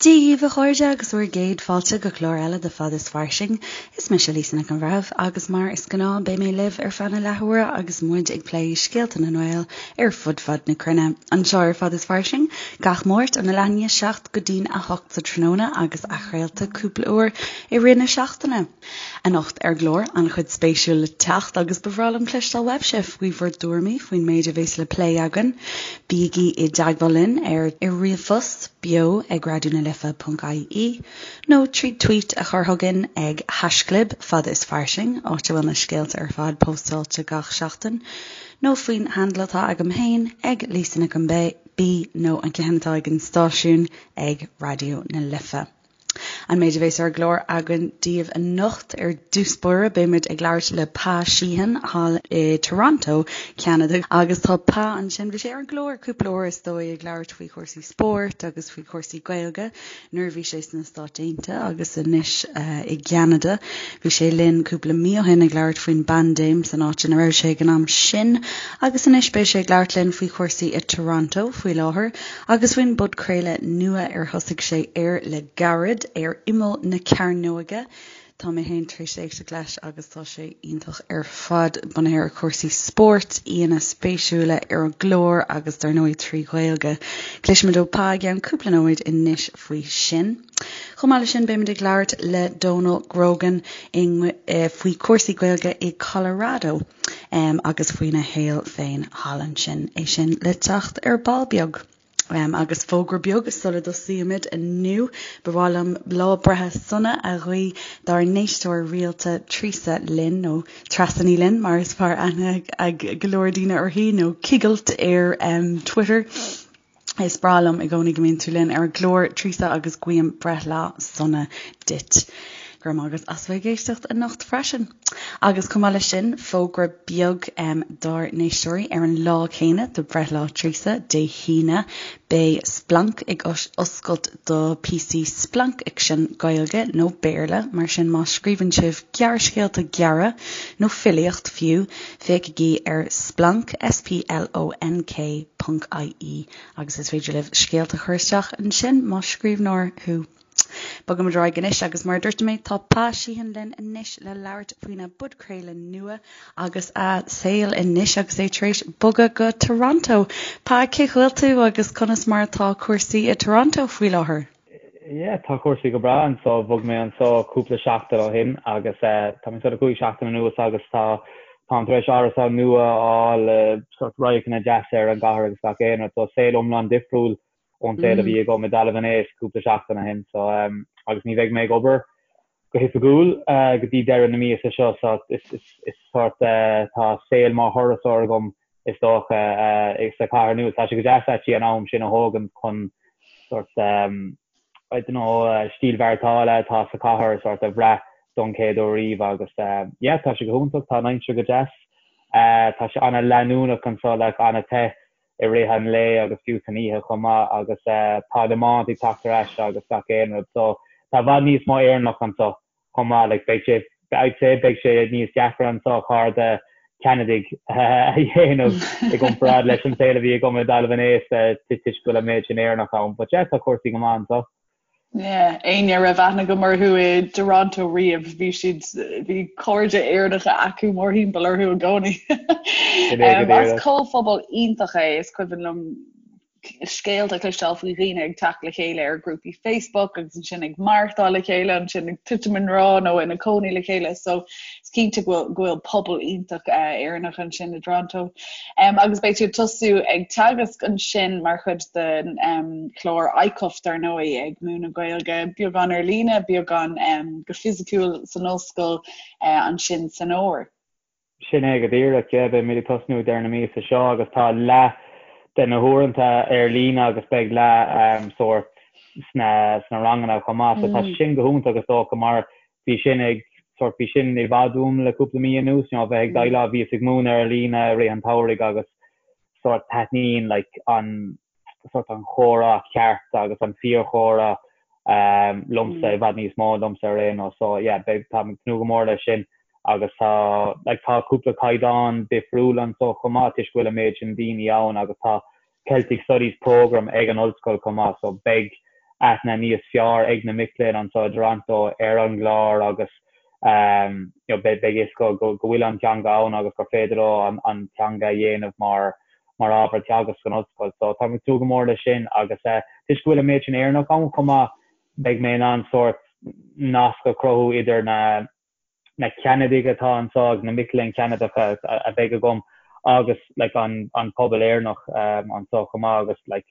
Dia dhaoibh a chairde agus bhur gcéad fáilte go clár eile de Fad is Fairsing. Is mise Lisa Nic an Bhreithimh agus mar is gnáth beidh mé libh ar feadh na leathuaire agus muid ag plé scéalta na nGael ar fud fad na cruinne. Anseo ar Fad is Fairsing gach Máirt óna leath i ndiaidh 7 go dtí'n 8 sa tráthnóna agus athchraolta cúpla uair i rith na seachtaine. Anocht ar an gclár, an-chuid spéisiúil le teacht agus ba bhreá liom cloisteáil uaibhse faoi bhur dtuairimí faoin méid a bhéas le plé againn. Bígí i dteagmháil linn ar ríomhphost, beo ag raidionalife.ie nó tríd tweet a chur chugainn ag haischlib fad is fairsing, áit a bhfuil na scéalta ar fad póstáilte gach seachtain, nó faoin handle atá agam féin ag Lisa Nic an B nó an ceann atá ag an stáisiún ag Raidió na Life. An méid a bhéas ar an gclár againn daoibh anocht, ar dtús báire beimid ag labhairt le Pa Sheehan thall i Toronto, Ceanada agus tá Pa ansin, bhí sé ar an gclár cúpla uair is dóigh ag labhairt faoi chúrsaí spóirt agus faoi chúrsaí Gaeilge nuair a bhí sé sna Stáit Aontaithe agus anois i gCeanada. Bhí sé linn cúpla mí ó shin ag labhairt faoin bpaindéim san áit ina raibh sé ag an am sin agus anois beidh sé ag labhairt linn faoi chúrsaí i Toronto faoi láthair Agus faoin bpodchraoladh nua ar thosaigh sé air le gairid, Ar Imeall na Cearnóige. Tá mé féin tar éis éisteacht leis agus tá sé iontach ar fad, bunaithe ar chúrsaí spóirt, aíonna spéisiúla ar an gclár agus dar ndóigh trí Ghaeilge. Cloisfimid ó Pa i gceann cúpla nóiméad anois faoi sin. Chomh maith leis sin beimid ag labhairt le Dónal Grogan faoi chúrsaí Gaeilge i Colorado agus faoina shaol féin thall ansin. É sin le teacht ar ball beag. Agus fógra beag sula dtosaímid inniu, ba mhaith liom lá breithe sona a ghuí dár n-éisteoir rialta Treasa Lynn, nó Treasa Ní Fhloinn mar is fearr aithne ag go leor daoine uirthi, nó Cigilt ar Twitter. Is breá liom i gcónaí go mbíonn tú linn ar an gclár, Treasa, agus guím breithlá sona duit. Go raibh maith agat as bheith ag éisteacht anocht freisin. Agus chomh maith leis sin, fógra beag dár n-éisteoirí, ar an lá céanna do bhreithlá Treasa, Dé hAoine, beidh Splanc ag oscailt do píosaí splancfhicsin Gaeilge nó Béarla, mar sin má scríobhann sibh gearrscéalta gearra, nó filíocht fiú, Féachaigí ar Splanc, S-P-L-O-N-K, ponc IE agus is féidir libh scéalta a chur isteach ansin más scríbhneoir thú. Bogaimid ar aghaidh anois agus mar a dúirt mé tá Pa Sheehan linn anois le labhairt faoina bpodchraoladh nua agus a saol anois agus é tar éis bogadh go Toronto. Pa, cén chaoi a bhfuil tú agus conas mar atá cúrsaí i Toronto faoi láthair? Yeah, tá cúrsaí go breá anseo. Bhog mé anseo cúpla seachtain ó shin agus tá mé anseo le 5 seachtain anuas agus tá táim tar éis árasán nua a fháil le sort radharcanna deasa ar an gcathair agus gach aon rud. So saol iomlán difriúil ón saol a bhí agam i dTalamh an Éisc cúpla seachtain ó shin. So agus ní bheidh mé ag obair go hoifigiúil go dtí deireadh na míosa seo so is is sort tá saol mar thurasóir agam is dócha, sa chathair nua. Tá sé go deas actually an am sin a thógaint chun sort I don't know, stíl mhaireachtála atá sa chathair sort a bhrath don chéad uair riamh agus yeah tá sé go hiontach, tá an aimsir go deas. Tá sé ana-leanúnach anseo like an-te i rith an lae agus fiú san oíche chomh maith agus tá an iomáint ag teacht ar ais agus gach aon rud so tá i bhfad níos mó Éireannach anseo chomh maith. Like beidh sé, I'd say beidh sé níos deacra anseo cairde Ceanadaigh a dhéanamh i gcomparáid leis an saol a bhí agam i dTalamh an Éisc toisc go bhfuil an méid sin Éireannach ann. But yeah, tá cúrsaí go maith anseo. Yeah, éinne a raibh aithne agam orthu i dToronto riamh, bhí siad, bhí cairde Éireannacha acu mórthimpeall orthu i gcónaí. Sin é go Is díreach. comhphobal iontach é, is cuimhin liom scéalta a chloisteáil faoi dhaoine ag teacht le chéile ar ghrúpaí Facebook agus ansin ag maireachtáil le chéile, ansin ag titim i ngrá nó ina cónaí le chéile. So is cinnte go bhfuil go bhfuil pobal iontach eh, Éireannach ansin i dToronto. Um, agus beidh tú ag tosú ag teagasc ansin mar chuid den um, chlár ICUF dar ndóigh ag múineadh Gaeilge beagán ar líne, beagán um, go fisiciúil san ollscoil uh, ansin san fhómhar. Sin é go díreach, yeah, beimid ag tosnú ag deireadh na míosa seo agus tá leath de na huaireanta ar líne agus beidh leath sórt sna sna ranganna chomh maith. So tá sin go hiontach is dócha mar bhí sin ag sórt bhí sin i bhfad uaim le cúpla mí anuas, you know, bheith ag déileáil, bhíos ag múineadh ar líne i rith an tsamhraidh agus sórt taitníonn like an sórt an chomhrá ceart agus an fíorchomhrá liomsa, i bhfad níos mó liomsa ar aon nós. So yeah, beidh, táim ag tnúth go mór leis sin agus tá, like tá cúpla caighdeán difriúil anso chomh maith toisc go bhfuil an méid sin daoine ann agus tá Celtic Studies programme ag an ollscoil chomh maith so beidh. aithne níos fearr ag na mic léinn anseo i dToronto ar an gclár agus you know beidh fhios acu go bhfuil an teanga ann agus gur féidir leo an teanga a dhéanamh mar mar ábhar teagaisc san ollscoil. So táim ag tnúth go mór leis sin agus toisc go bhfuil an méid sin Éireannach ann chomh maith beidh mé in ann sórt nasc a chruthú idir na na Ceanadaigh atá anseo agus na mic léinn Ceanadacha a bheidh agam agus like an an pobal Éireannach anseo chomh maith agus like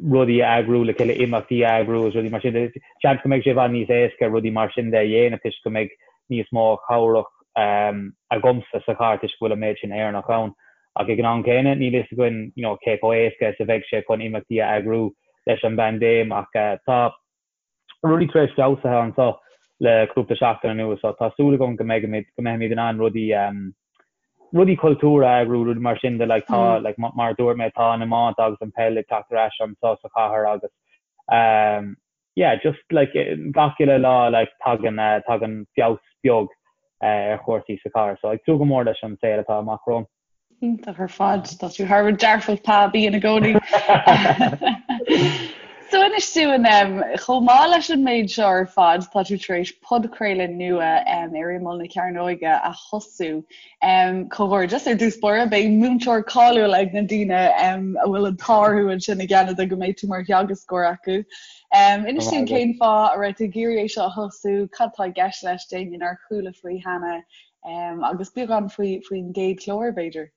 rudaí a eagrú le chéile, imeachtaí a eagrú agus rudaí mar sin de. Seans go mbeidh sé i bhfad níos éasca rudaí mar sin de a dhéanamh toisc go mbeidh níos mó cabhrach agamsa sa chathair toisc go bhfuil an méid sin Éireannach ann. Ach ag an am céanna, níl fhios againn you know cé chomh héasca is a bheidh sé chun imeachtaí a eagrú leis an bpaindéim ach tá rudaí tar éis feabhsaithe anseo le cúpla seachtain anuas so tá súil agam go mbeidh go mbeimid in ann rudaí rudaí cultúir a eagrú, rudaí mar sin de like tá like mar a dúirt mé tá an iomáint agus an peil ag teacht ar ais anseo sa chathair agus um yeah just like gach uile lá like tagann tagann feabhas beag ar chúrsaí sa chathair so ag tnúth go mór leis an saol atá amach romham. Iontach ar fad. Tá tú thar a bheith dearfach Pa, bíonn i gcónaí. So inis dúinn, chomh maith leis an méid seo ar fad, tá tú tar éis podchraoladh nua ar Imeall na Cearnóige a thosú. Comhghairdeas ar dtús báire, beidh múinteoir cáiliúil ag na daoine a bhfuil an t-ádh orthu ansin i gCeanada go mbeidh tú mar theagascóir acu. Inis dúinn cén fáth a raibh tú ag iarraidh é seo a thosú, cad tá i gceist leis d'éinne nár chuala faoi cheana agus beagán faoi faoin gcéad chlár, b'fhéidir.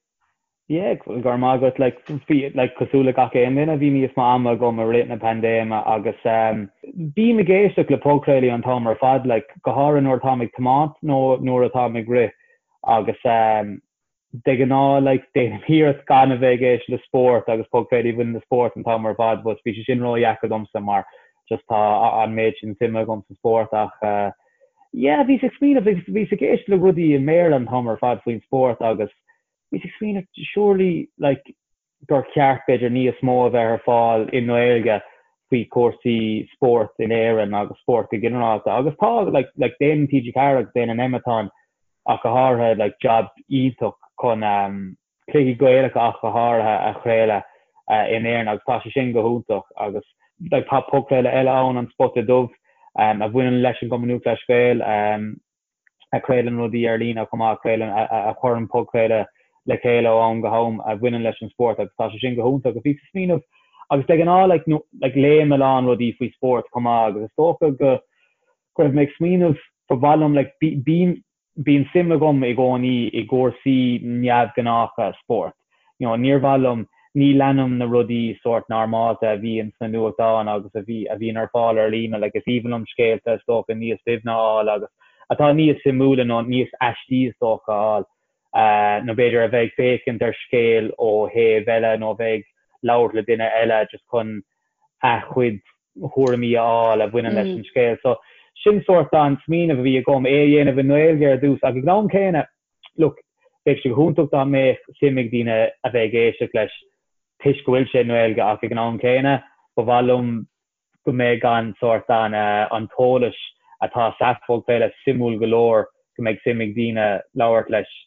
Yeah, go raibh maith agat. Like, bhí, like, cosúil le gach aon duine, bhí níos mó ama agam i rith na paindéime agus bím ag éisteacht le podchraolaí an t-am ar fad, like, go háirithe nuair atáim ag tiomáint nó nuair atáim ag rith agus de ghnáth, like, déanaim iarracht gan a bheith ag éisteacht le spórt agus podchraolaí a bhaineann le spórt an t-am ar fad but bhí sé sin ródheacair domsa mar just tá an méid sin suime agam sa spórt ach Yeah, bhíos ag smaoineamh, bhíos ag éisteacht le rudaí i mBéarla an t-am ar fad faoin spórt agus bhíos ag smaoineamh surely like gur cheart b'fhéidir níos mó a bheith ar fáil i nGaeilge faoi chúrsaí spóirt in Éirinn agus spórt go ginearálta. Agus tá like like déanann TG4 agus déanann Nemeton ach go háirithe like jab iontach chun um, cluichí Gaelacha ach go háirithe a chraoladh in Éirinn agus tá sé sin go hiontach agus like tá podchraoladh eile ann, An Spota Dubh, a bhaineann leis an gCumann Lúthchleas Gael a chraolann rudaí ar líne chomh maith, a chraolann, a chuireann podchraoladh le chéile ó am go ham a bhaineann leis an spórt agus tá sé sin go hiontach. Agus bhíos ag smaoineamh agus de ghnáth like nó like léim a lán rudaí faoi spórt chomh maith agus is dócha go go raibh mé ag smaoineamh ba mhaith liom like bím Bíonn suim agam i gcónaí i gcúrsaí neamhghnácha spóirt. You know, níor mhaith liom, ní leanaim na rudaí sórt normálta a bhíonn sna nuachtáin agus a bhí, a bhíonn ar fáil ar líne. Like, is aoibhinn liom scéalta is dócha níos doimhne a fháil agus atá níos suimiúla nó níos aistí is dócha a fháil. Nó b'fhéidir a bheith ag féachaint ar scéal ó thaobh eile nó a bheith ag labhairt le duine eile just chun a chuid thuairimí a fháil a bhaineann leis an scéal. So sin sórt an smaoineamh a bhí agam, é a dhéanamh i nGaeilge ar dtús ach ag an am céanna, look, bheadh sé go hiontach dá mbeadh suim ag daoine a bheith ag éisteacht leis toisc go bhfuil sé i nGaeilge ach ag an am céanna, ba mhaith liom go mbeadh an sórt an an t-eolas atá sa phodchraoladh suimiúil go leor go mbeidh suim ag daoine labhairt leis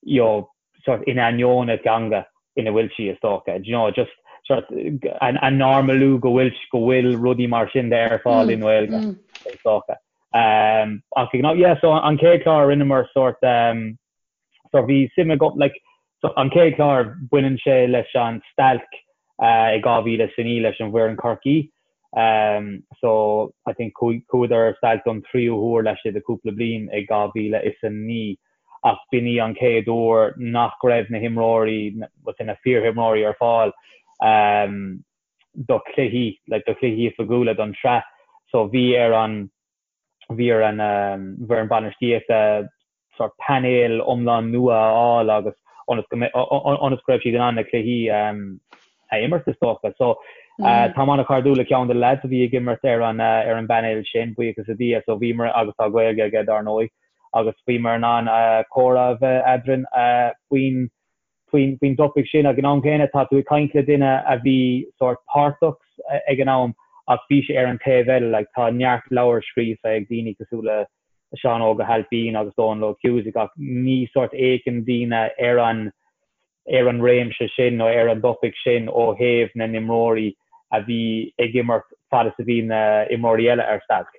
you know, sort in ainneoin na teanga ina bhfuil sí, is dócha. Do you know, just sort a normalú go bhfuil go bhfuil rudaí mar sin de ar fáil i nGaeilge, is dócha. Um, ach you know, yeah, so an chéad chlár a rinneamar sort um, so bhí suim agam like, so an chéad chlár baineann sé leis an stailc uh, i 2009 leis an bhfoireann Chorcaí. Um, so I think chuadar ar stailc don tríú huair laistigh de cúpla bliain i 2009. ach b'in í an chéad uair nach raibh na himreoirí, na fíorhimreoirí ar fáil do chluichí, like do chluichí oifigiúla don tsraith. So bhí ar an, bhí ar an bhfoireann bainistíochta sort painéal iomlán nua a fháil agus ionas go mbeidh, ionas go raibh siad in ann na cluichí a imirt is dócha. So táim an-chairdiúil le ceann de na lads a bhí ag imirt ar an ar an bpainéal sin, buíochas le Dia. So bhíomar, agus tá Gaeilge aige dar ndóigh. agus bhíomar in ann comhrá a bheith eadrainn faoin faoin faoin dtopaic sin. Ag an am céanna, tá tú ag caint le duine a bhí sórt páirteach ag an am ach bhí sé ar an taobh eile, like tá neart leabhar scríofa ag daoine cosúil le Seán Óg Ó hAilpín agus Dónal Óg Cusack ach ní sórt fhéachann daoine ar an ar an réimse sin nó ar an dtopaic sin ó thaobh na n-imreoirí. a bhí ag imirt fad is a bhí na imreoirí eile ar stailc.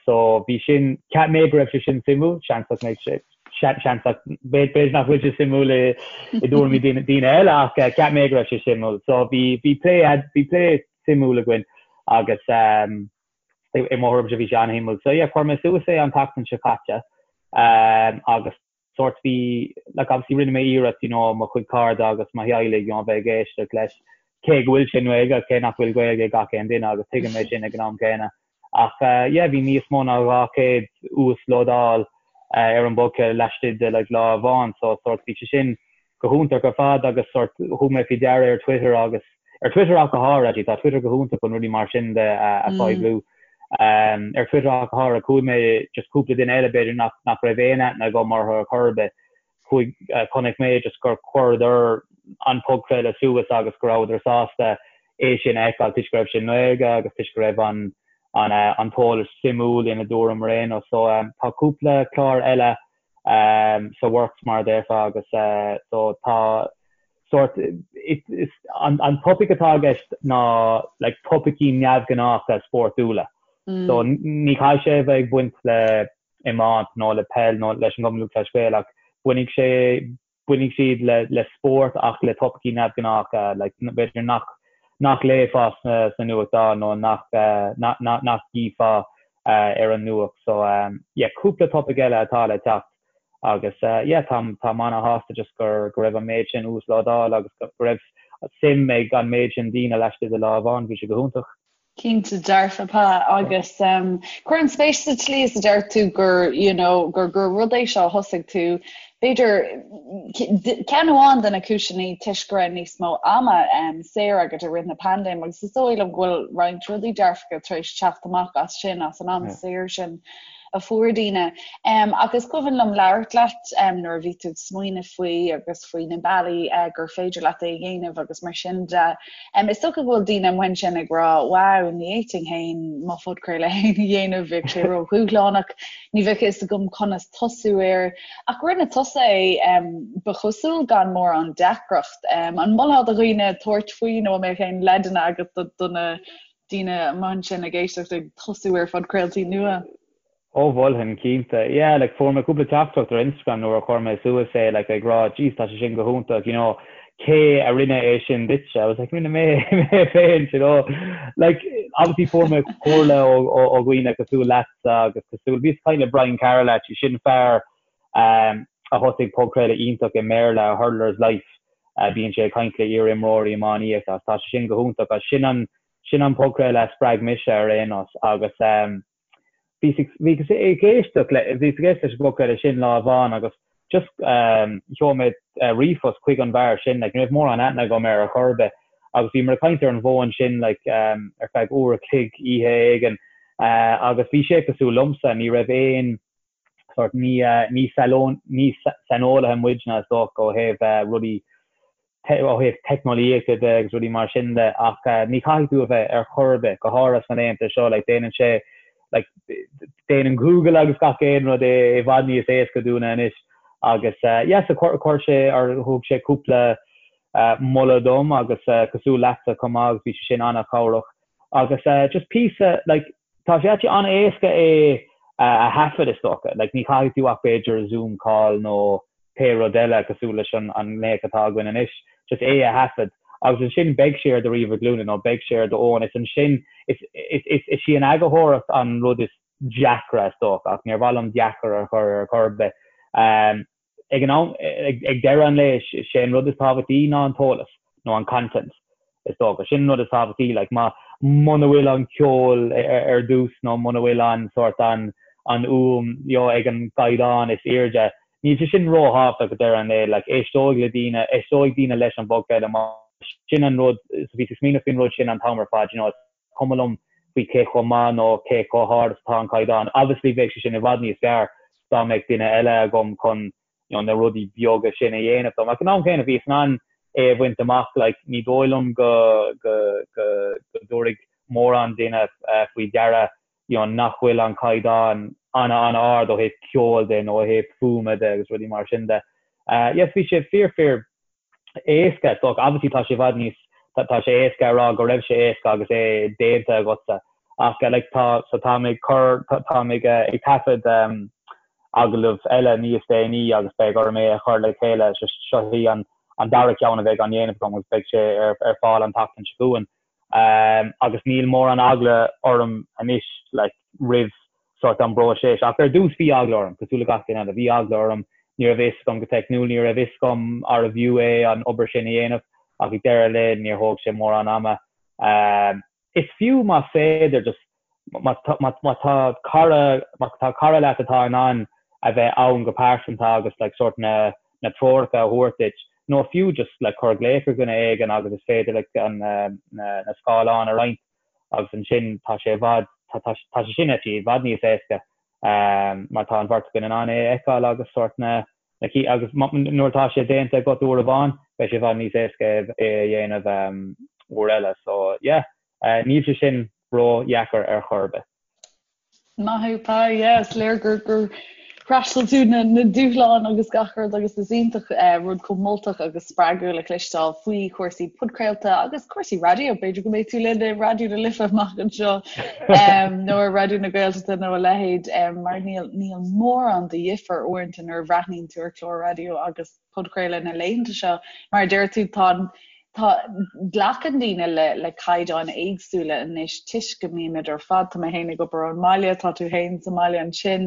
So bhí sin, cheap mé go raibh sé sin suimiúil, seans nach mbeidh sé, seans nach, b'fhéidir nach bhfuil sé suimiúil i i dtuairimí daoine daoine eile ach cheap mé go raibh sé suimiúil. So bhí bhí plé bhí plé suimiúil againn agus um, i mo thuairimse bhí sé an-shuimiúil. So yeah, chuir mé suas é an tseachtain seo caite um, agus sórt bhí like obviously rinne mé iarracht you know mo chuid cairde agus mo theaghlaigh you know bheith ag éisteacht leis cé go bhfuil sé i nGaeilge cé nach bhfuil Gaeilge ag gach aon duine agus tuigim é sin ag an am céanna ach uh, yeah bhí níos mó ná 200 uaslódáil uh, ar an bpodchraoladh laistigh de like lá amháin so sórt bhí sé sin go hiontach ar fad agus sórt thug mé faoi deara ar Twitter agus ar Twitter ach go háirithe actually tá Twitter go hiontach chun rudaí mar sin de a phoibliú. Ar Twitter ach go háirithe chuala mé just cúpla duine eile b'fhéidir nach nach raibh aon aithne agam orthu ar chor ar bith chuaigh chonaic mé just gur chuireadar an podchraoladh suas agus go rabhadar sásta é sin a fheiceáil toisc go raibh sé i nGaeilge agus toisc go raibh an an an t-eolas suimiúil ina dtuairim ar aon nós. So tá cúpla clár eile sa works mar a déarfá agus so tá sórt an an topaic atá i gceist ná like topaicí neamhghnácha spórtúla. So ní chaithfidh sé a bheith ag baint le iomáint nó le peil nó leis an gCumann Lúthchleas Gael ach bainfidh sé bainfidh siad le le spórt ach le topaicí neamhghnácha like b'fhéidir nach nach léifeá sna sna nuachtáin nó nach nach nach gcífeá ar an nuacht. So yeah cúpla topaic eile atá le teacht agus yeah táim táim ana-shásta just gur go raibh an méid sin uaslódáil agus go raibh suim ag an méid sin daoine laistigh de lá amháin, bhí sé go hiontach. Cinnte dearfa Pa agus cuirim spéis sa tslí is a deir tú gur you know gur gur rud é seo a thosaigh tú b'fhéidir ceann amháin de na cúiseanna toisc go raibh níos mó ama saor agat i rith na paindéime agus is dóigh liom go bhfuil roinnt rudaí dearfacha tar éis teacht amach as sin as an am saor sin a fuair daoine. Ach is cuimhin liom labhairt leat nuair a bhí tú ag smaoineamh faoi agus faoi na bealaí gur féidir leat é a dhéanamh agus mar sin de. Is dócha go bhfuil daoine amuigh ansin ag rá wow, ní fhéadfainn féin mo phodchraoladh féin a dhéanamh, bheadh sé ró-dhúshlánach, ní bheadh a fhios agam conas tosú air. Ach rinne tusa é, ba chosúil, gan mórán deacracht. An molfá do dhaoine tabhairt faoi nó an mbeadh aon leideanna agat do na daoine amuigh ansin ag éisteacht ag tosú ar phodchraoltaí nua? Ó mholfainn, cinnte. Yeah, like fuair mé cúpla teachtaireacht ar Instagram nuair a chuir mé suas é, like ag rá jeez tá sé sin go hiontach, you know, cé a rinne é sin duitse? I was like rinne mé mé féin, you know. Like obviously fuair mé comhairle ó ó ó dhaoine cosúil leatsa agus cosúil, bhíos ag caint le Brian Carroll actually, sin fear um a thosaigh podchraoladh iontach i mBéarla, A Hurler's Life, uh, bíonn sé ag caint le iar-imreoirí iománaíochta agus tá sé sin go hiontach agus sin an sin an podchraoladh a spreag mise ar aon nós agus um Bhíos ag éisteacht le, bhíos ag éisteacht leis an bpodchraoladh sin lá amháin agus just sheol mé ríomhphost chuig an bhfear sin, like ní raibh mórán aithne agam air ar chor ar bith agus bhíomar ag caint ar an bhfón sin like ar feadh uair a chloig oíche éigin agus bhí sé cosúil liomsa, ní raibh aon sort ní ní ní saineolaithe muidne is dócha ó thaobh rudaí ó thaobh teicneolaíochta de agus rudaí mar sin de ach ní chaithfidh tú a bheith ar chor ar bith, go háirithe sna laethanta seo, like déanann sé, like déanann Google agus gach aon rud é i bhfad níos éasca dúinne anois agus yeah so chuir sé or thug sé cúpla moladh dom agus cosúil leatsa chomh maith agus bhí sé sin an-chabhrach agus just píosa like tá sé actually an-éasca é a thaifead is dócha, like ní chaithfidh tú ach b'fhéidir Zoom call nó pé rud eile cosúil leis an an nglaoch atá againn anois, just é a thaifead agus ansin beidh sé ar do ríomhaire glúine nó beidh sé ar do fhón. Is ansin is is is is í an eagarthóireacht an rud is deacra is dócha ach níor mhaith liom deacair a chur ar chor ar bith. Ag an am, ag deireadh an lae, is é an rud is tábhachtaí ná an t-eolas, nó an content, is dócha. Sin an rud is tábhachtaí, like, má, muna bhfuil an ceol ar dtús nó muna bhfuil an sórt, an, an fhuaim, you know, ag an gcaighdeán is airde, níl sé sin róthábhachtach ag deireadh an lae, like, éisteoidh le daoine, éisteoidh daoine leis an bpodchraoladh má, sin an rud, so bhíos ag smaoineamh faoin rud sin an t-am ar fad, you know, is cuma liom faoi cé chomh maith nó cé chomh hard is atá an caighdeán. Obviously bheadh sé sin i bhfad níos fearr dá mbeadh duine eile agam chun you know na rudaí beaga sin a dhéanamh dom. Ach ag an am céanna bhíos in ann é a bhaint amach like ní dóigh liom go go go go dtabharfaidh mórán duine faoi deara you know nach bhfuil an caighdeán ana-an-ard ó thaobh ceoil de nó ó thaobh fuaime de agus rudaí mar sin de. Yes bhí sé fíor fíor éasca. So obviously tá sé i bhfad níos. Tá sé éasca a rá go raibh sé éasca agus é déanta agatsa ach like tá so táim ag cur táim ag ag taifead agallamh eile níos déanaí agus beidh orm é a chur le chéile. Seo í an an dara ceann a bheidh á dhéanamh agam agus beidh sé ar ar fáil an tseachtain seo chugainn. Agus níl mórán eagla orm anois like roimh sort an bpróiseas. Ach ar dtús bhí eagla orm, cosúil le gach duine eile, bhí eagla orm, ní raibh fhios agam go teicniúil, ní raibh fhios agam arbh fhiú é an obair sin a dhéanamh ach ag deireadh lae níor thóg sé mórán ama. Is fiú más féidir just má tá cara, má tá cara leat atá in ann a bheith ann go pearsanta agus like sort na na treoracha a thabhairt duit nó fiú just like cur glaoch ar dhuine éigin agus is féidir like an na na scáileáin a roinnt agus ansin tá sé i bhfad, tá sé sin actually i bhfad níos éasca mar tá an bheirt againn in ann é a fheiceáil agus sort na, agus nuair atá sé déanta agat uair amháin, beidh sé i bhfad níos éasca é a dhéanamh uair eile. So yeah, níl sé sin ró-dheacair ar chor ar bith. Maith thú Pa, yeah, is léir gur gur fhreastail tú na na dúshláin agus gach rud agus is iontach eh, rud chomh moltach agus spreagúil a chloisteáil faoi chúrsaí podchraolta agus cúrsaí raidió, b'fhéidir go mbeidh tú linn i Raidió na Life amach anseo um, nó ar Raidió na Gaeltachta nó a leithéid um, mar níl níl mórán de dhifear uaireanta nuair a bhreathnaíonn tú ar chlár raidió agus podchraoladh na laethanta seo. Mar a deir tú tá Tá, glacann daoine le le caighdeáin éagsúla anois toisc go mbímid ar fad, tá mé féin ag obair ón mbaile, tá tú féin sa mbaile ansin,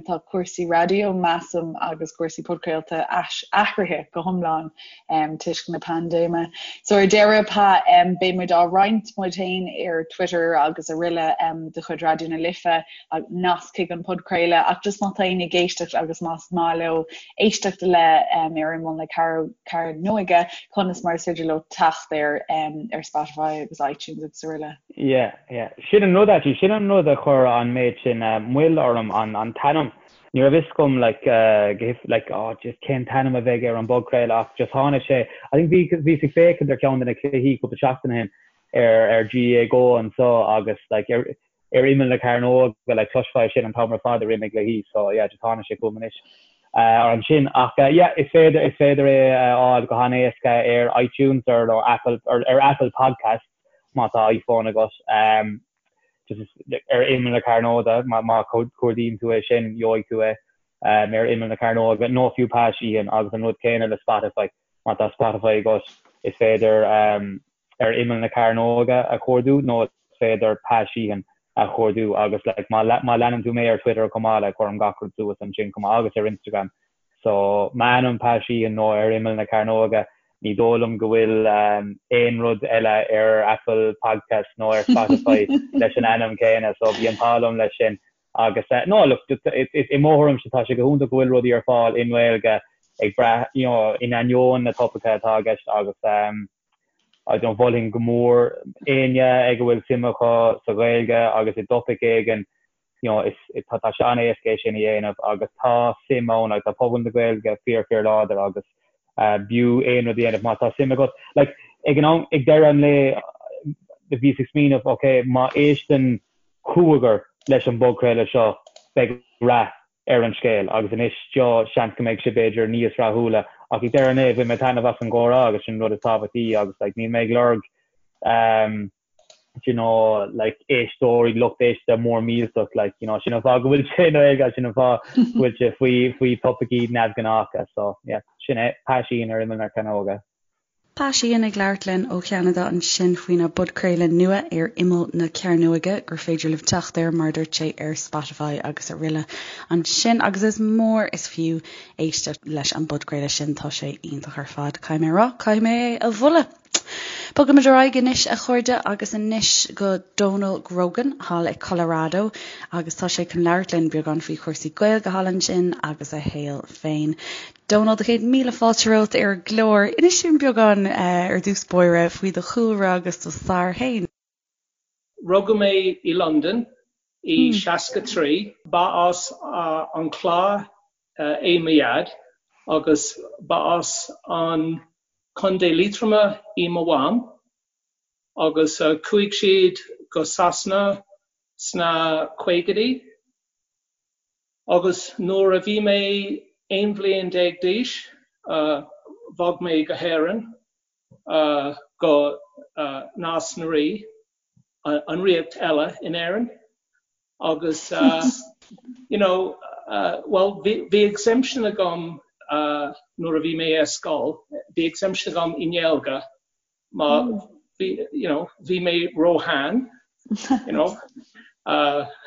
tá cúrsaí raidió, measaim, agus cúrsaí podchraolta athraithe go hiomlán toisc na paindéime. So ar deireadh, Pa, beidh muid á roinnt muid féin ar Twitter agus araile de chuid Raidió na Life, nasc chuig an podchraoladh ach just má tá éinne ag éisteacht agus más maith leo éisteacht le ar imeall na cearnóige conas mar is féidir leo teacht air ar Spotify agus iTunes agus araile. Yeah, yeah. Sin an rud actually, sin an rud a chuir an méid sin moill orm, an an t-ainm. Ní raibh fhios agam like like oh just cén t-ainm a bheidh ar an bpodchraoladh ach just tháinig sé, I think bhí bhíos ag féachaint ar ceann de na cluichí cúpla seachtain ó shin ar ar GAA Go anseo agus like ar ar imeall na cearnóige, like cloisfeá é sin an t-am ar fad i rith na gcluichí so yeah just tháinig sé chugam anois uh, ansin ach uh, yeah is féidir is féidir é a fháil go han-éasca ar iTunes ar nó Apple ar, ar Apple Podcasts má tá iPhone agat um, just ar imeall na cearnóige má, má chuardaíonn tú é sin gheobhaidh tú é um, ar imeall na cearnóige nó fiú Pa Sheehan agus an rud céanna le Spotify má tá Spotify agat is féidir um, ar imeall na cearnóige a chuardú nó is féidir Pa Sheehan a chuardú agus like má má leanann tú mé ar Twitter chomh maith like cuirim gach rud suas ansin chomh maith agus ar Instagram so m'ainm Pa Sheehan nó ar imeall na cearnóige ní dóigh liom go bhfuil um, aon rud eile ar Apple Podcast nó ar Spotify leis an ainm céanna so bhí an t-ádh liom leis sin agus eh, no look i mo thuairimse tá sé go hiontach go bhfuil rudaí ar fáil i nGaeilge ag brath you know in ainneoin na topaice atá i gceist agus um, I don't mholfainn go mór éinne ag a bhfuil suim acu sa Ghaeilge agus i dtopaic éigin you know is tá tá sé an-éasca é sin a dhéanamh agus tá suim ann like tá pobal na Gaeilge fíor fíor láidir agus uh, b'fhiú aon rud a dhéanamh má tá suim agat like ag an am ag deireadh an lae bhíos ag smaoineamh ok má éisteann cúigear leis an bpodchraoladh seo beidh rath ar an scéal agus anois seo seans go mbeidh sé b'fhéidir níos rathúla ach ag deireadh an lae bhain mé taitneamh as an gcomhrá agus sin an rud is tábhachtaí agus like níl mé ag lorg um you know like éisteoirí lucht éiste mór millteach like you know sin an fáth go bhfuil sé i nGaeilge sin an fáth go bhfuil sé faoi faoi topaicí neamhghnácha so yeah sin é Pa Sheehan ar imeall na cearnóige. Pa Sheehan ag labhairt linn ó Cheanada ansin faoina bpodchraoladh nua ar imeall na cearnóige gur féidir libh teacht air mar a dúirt sé ar Spotify agus araile ansin agus is mór is fiú éisteacht leis an bpodchraoladh sin tá sé iontach ar fad caithfidh mé a rá caithfidh mé é a mholadh. Bogaimid ar aghaidh anois a chairde agus anois go Dónal Grogan thall i Colorado agus tá sé chun labhairt linn beagán faoi chúrsaí Gaeilge thall ansin agus a shaol féin. Dónal, 100,000 fáilte romhat ar an gclár. Inis dúinn beagán ar dtús báire faoi do chúlra agus do stair féin. Rugadh mé i Londain i 63. Ba as an Clár é mo dhaid agus ba as an Contae Liatroma í mo mham agus chuaigh siad go Sasana sna caogaidí. Agus nuair a bhí mé 11 bhliain d'aois, bhog mé go hÉirinn. Go Nás na Rí, an ríocht eile in Éirinn agus you know bhuel bhí exemption agam nuair a bhí mé ar scoil, bhí exemption agam i nGaeilge mar bhí you know bhí mé róshean you know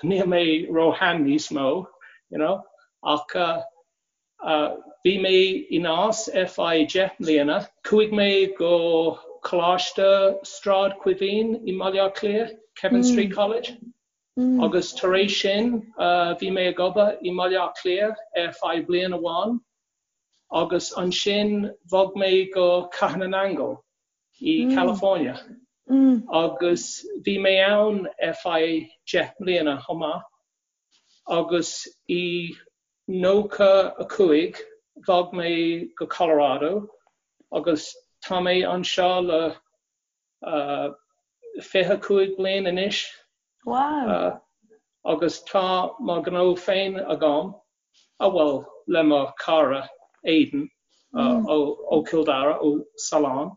níl mé róshean níos mó you know ach Bhí mé i Nás ar feadh 10 mbliana. Chuaigh mé go Coláiste Sráid Chaoimhín i mBaile Átha Cliath, Kevin Street College, agus tar éis sin bhí mé ag obair i mBaile Átha Cliath ar feadh bliain amháin agus ansin bhog mé go Cathair na nAingeal i California agus bhí mé ann ar feadh 10 mbliana chomh maith. Agus i 95 bhog mé go Colorado agus tá mé anseo le 25 bliain anois. Wow. Agus tá mo ghnó féin agam, bhuel, le mo chara Aidan ó Chill Dara, ó Saileán.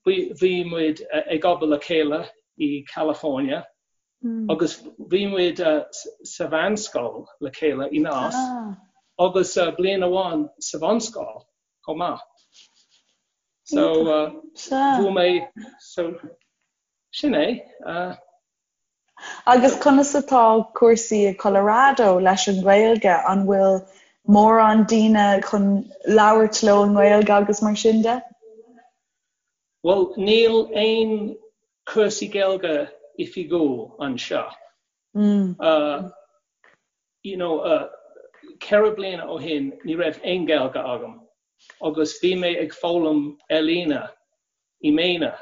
Bhí muid ag obair le chéile i California Agus bhí muid sa mheánscoil le chéile i Nás agus bliain amháin sa bhunscoil chomh maith. So bhuail mé, so sin é. Agus conas atá cúrsaí i Colorado leis an Ghaeilge? An bhfuil mórán daoine chun labhairt leo i nGaeilge agus mar sin de? Bhuel, níl aon cúrsaí Gaeilge oifigiúil anseo. You know, 4 bliana ó shin ní raibh aon Gaeilge agam agus bhí mé ag foghlaim ar líne i mbliana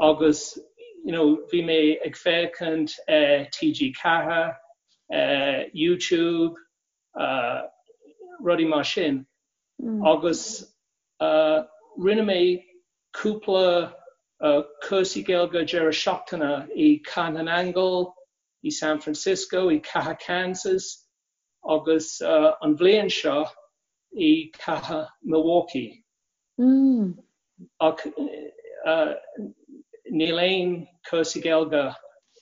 agus you know, bhí mé ag féachaint ar TG4, YouTube, rudaí mar sin agus Rinne mé cúpla cúrsaí Gaeilge deireadh seachtaine i Cathair na nAingeal, i San Francisco, i Cathair Kansas agus an bhliain seo i Cathair Milwaukee. Ach níl aon cúrsaí Gaeilge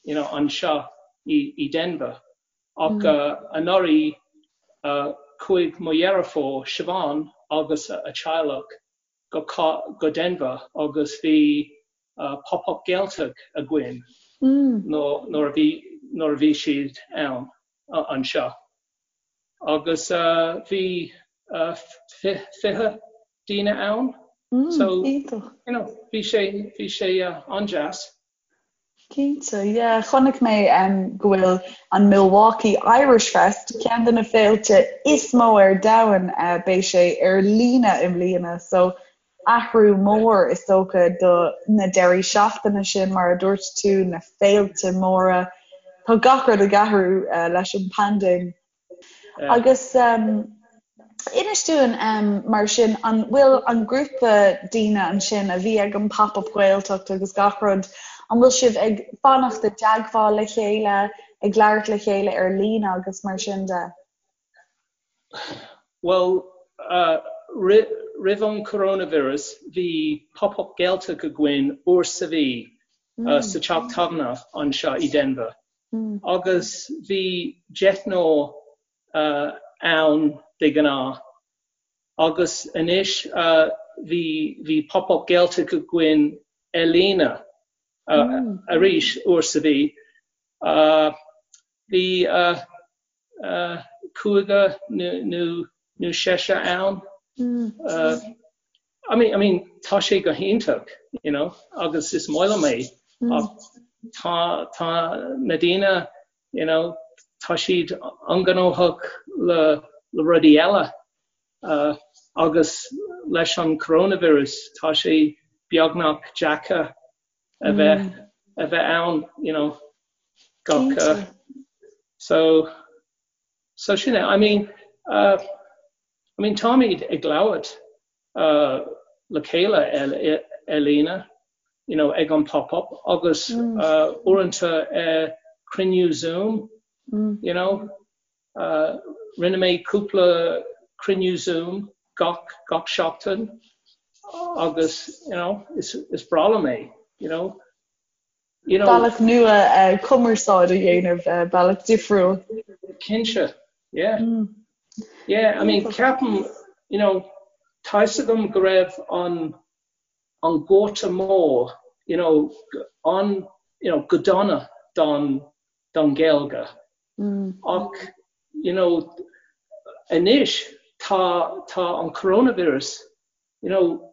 you know anseo i Denver. Ach anuraidh chuaigh mo dheirfiúr Siobhán agus a teaghlach go Denver agus bhí Pop Up Gaeltacht againn nuair a bhí nuair a bhí siad ann anseo. Agus bhí 20 daoine ann so you know bhí sé bhí sé an-deas. Cinnte, yeah. Chonaic mé go bhfuil an Milwaukee Irish Fest, ceann de na féilte is mó ar domhan, beidh sé ar líne i mbliana, so athrú mór is dócha do na deirí seachtaine sin, mar a dúirt tú, na féilte móra. Tá gach rud ag athrú leis an bpaindéim. Agus inis dúinn mar sin, an bhfuil an grúpa daoine ansin a bhí ag an Pop Up Gaeltacht agus gach rud, an bhfuil sibh ag fanacht i dteagmháil le chéile, ag labhairt le chéile ar líne agus mar sin de? Bhuel, roimh an coronavirus bhí Pop Up Gaeltacht againn uair sa mhí sa teach tábhairne anseo i Denver. Agus bhí deichniúr ann de ghnáth. Agus anois bhí bhí Pop Up Gaeltacht againn ar líne arís uair sa mhí. Bhí cúigear nó seisear ann. I mean, I mean, tá sé go hiontach, you know, agus is maith liom é ach tá, tá na daoine, you know, tá siad an-ghnóthach le, le rudaí eile agus leis an coronavirus tá sé beagnach deacair a bheith, a bheith ann, you know, gach, so, so sin é. I mean, uh, I mean táimid ag labhairt le chéile ar líne, you know, ag an pop up agus uaireanta ar cruinniú Zoom, you know. Rinne mé cúpla cruinniú Zoom gach gach seachtain. Agus, you know, is, is breá liom é, you know. You know. Bealach nua cumarsáid a dhéanamh, bealach difriúil. Cinnte, yeah. Yeah, I mean, ceapaim, you know, tá fhios agam go raibh an, an Gorta Mór, you know, an, you know, go dona don, don Ghaeilge. Ach, you know, anois tá, tá an coronavirus, you know,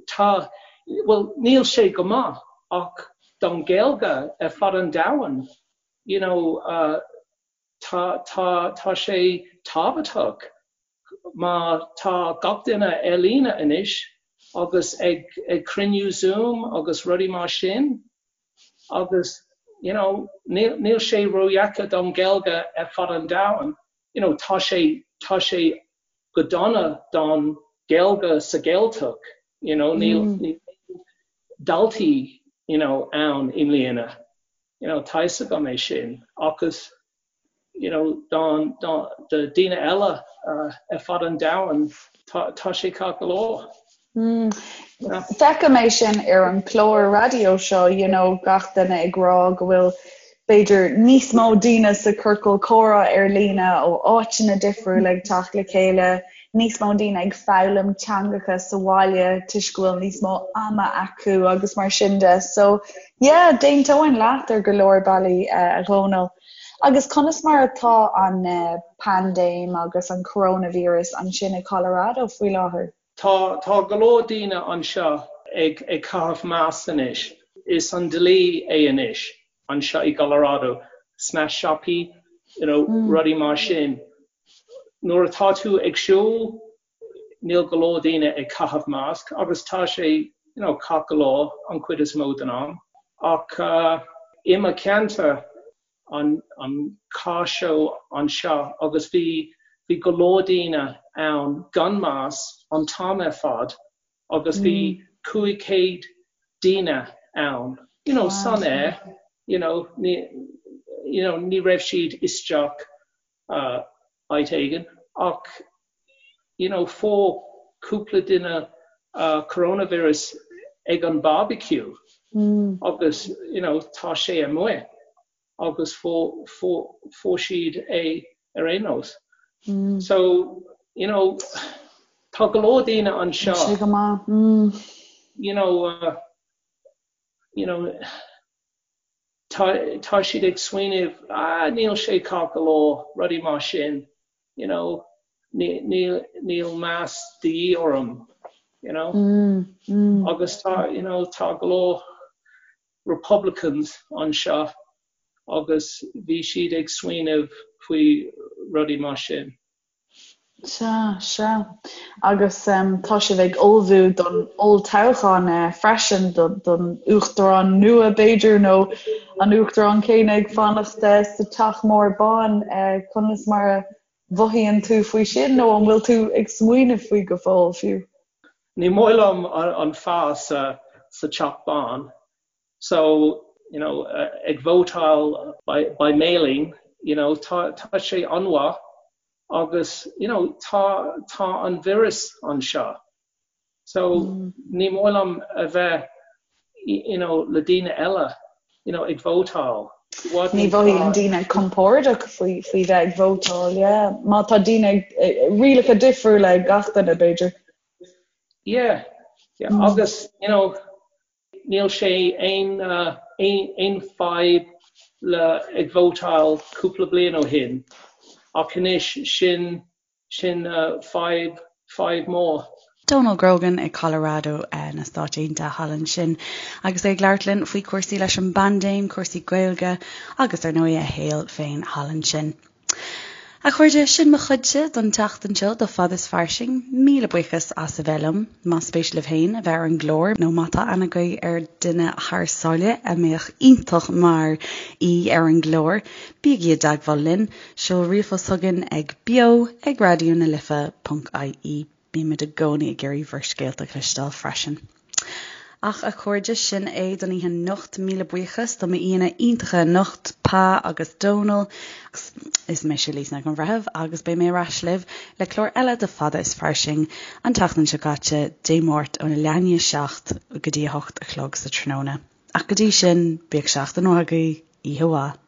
tá, bhuel, níl sé go maith ach don Ghaeilge ar fud an domhain, you know, uh, tá, tá, tá sé tábhachtach mar tá gach duine ar líne anois agus ag, ag cruinniú Zoom agus rudaí mar sin agus, you know, níl, níl sé ródheacair don Ghaeilge ar fud an domhain, you know, tá sé, tá sé go dona don Ghaeilge sa Ghaeltacht, you know, níl, níl daltaí, you know, ann i mbliana, you know, tá fhios agam é sin agus, you know, don, don, do daoine eile uh, ar fud an domhain, tá, tá sé ceart go leor. Mm. Feicim é sin ar an chlár raidió seo, you know, gach duine ag rá go bhfuil b'fhéidir níos mó daoine sa ciorcal comhrá ar líne ó áiteanna difriúla ag teacht le chéile, níos mó daoine ag foghlaim teangacha sa bhaile toisc go bhfuil níos mó ama acu agus mar sin de. So, yeah, d'aontóinn leat ar go leor bealaí, a Dhónaill. Agus conas mar atá an paindéim agus an coronavirus ansin i Colorado faoi láthair? Tá tá go leor daoine anseo ag ag caitheamh masc anois. Is an dlí é anois anseo i gColorado sna siopaí, you know, rudaí mar sin. Nuair atá tú ag siúl, níl go leor daoine ag caitheamh masc agus tá sé, you know, ceart go leor an chuid is mó den am. Ach i mo cheantar, an an car show anseo agus bhí bhí go leor daoine ann gan masc an t-am ar fad agus bhí 500 daoine ann you know san aer you know ní you know ní raibh siad isteach uh, áit éigin ach you know fuair cúpla duine uh, coronavirus ag an barbecue mm. agus you know tá sé amuigh agus fuair fuair fuair siad é ar aon nós. Mm. So you know tá go leor daoine anseo. Sé go maith. Mm. You know uh, you know Tá tá siad ag smaoineamh, ah níl sé ceart go leor, rudaí mar sin, you know, níl níl masc de dhíth orm, you know. Agus tá, you know, tá go leor Republicans anseo agus bhí siad ag smaoineamh faoi rudaí mar sin. Sea, sea. Agus tá sibh ag ullmhú don olltoghchán freisin, don uachtarán nua, b'fhéidir, nó an uachtarán céanna ag fanacht sa Teach Mór Bán. Conas mar a mhothaíonn tú faoi sin, nó an bhfuil tú ag smaoineamh faoi go fóill, fiú? Ní maith liom an fear sa Teach Bán. So, you know, ag vótáil by, by mailing, you know, tá, tá sé an-mhaith agus, you know, tá, tá an virus anseo. So, mm. ní maith liom a bheith, you know, le daoine eile, you know, ag vótáil. Ní mhothaíonn daoine compordach faoi, faoi bheith ag vótáil, yeah. Má tá daoine ag, eh, rialacha difriúla ag gach duine, b'fhéidir. Yeah, yeah. Mm. Agus, you know, Níl sé aon aon fadhb le ag vótáil cúpla bliain ó shin ach anois sin sin fadhb fadhb mór. Dónal Grogan i Colorado na Stáit Aontaithe thall ansin agus é ag labhairt linn faoi chúrsaí leis an bpaindéim, cúrsaí Gaeilge agus ar ndóigh a shaol féin thall ansin. A chairde, sin mo chuidse don tseachtain seo de Fad is Fairsing. Míle buíochas as a bheith liom. Más spéis libh féin a bheith ar an gclár nó má tá aithne agaibh ar duine thar sáile a mbeadh iontach mar aoi ar an gclár, bígí i dteagmháil linn. Seol ríomhphost chugainn ag beo ag raidió na life ponc ie. Bímid i gcónaí ag iarraidh bhur scéalta a chloisteáil freisin. Ach a chairde, sin é don oíche anocht. Míle buíochas do m'aíonna iontacha anocht, Pa agus Dónal. Is mise Lisa Nic an Bhreithimh agus beidh mé ar ais libh le clár eile de Fada is Fairsing an tseachtain seo caite, Dé Máirt óna leath i ndiaidh 7 go dtí 8 a chlog sa tráthnóna. Ach go dtí sin, bíodh seachtain mhaith agaibh, oíche mhaith.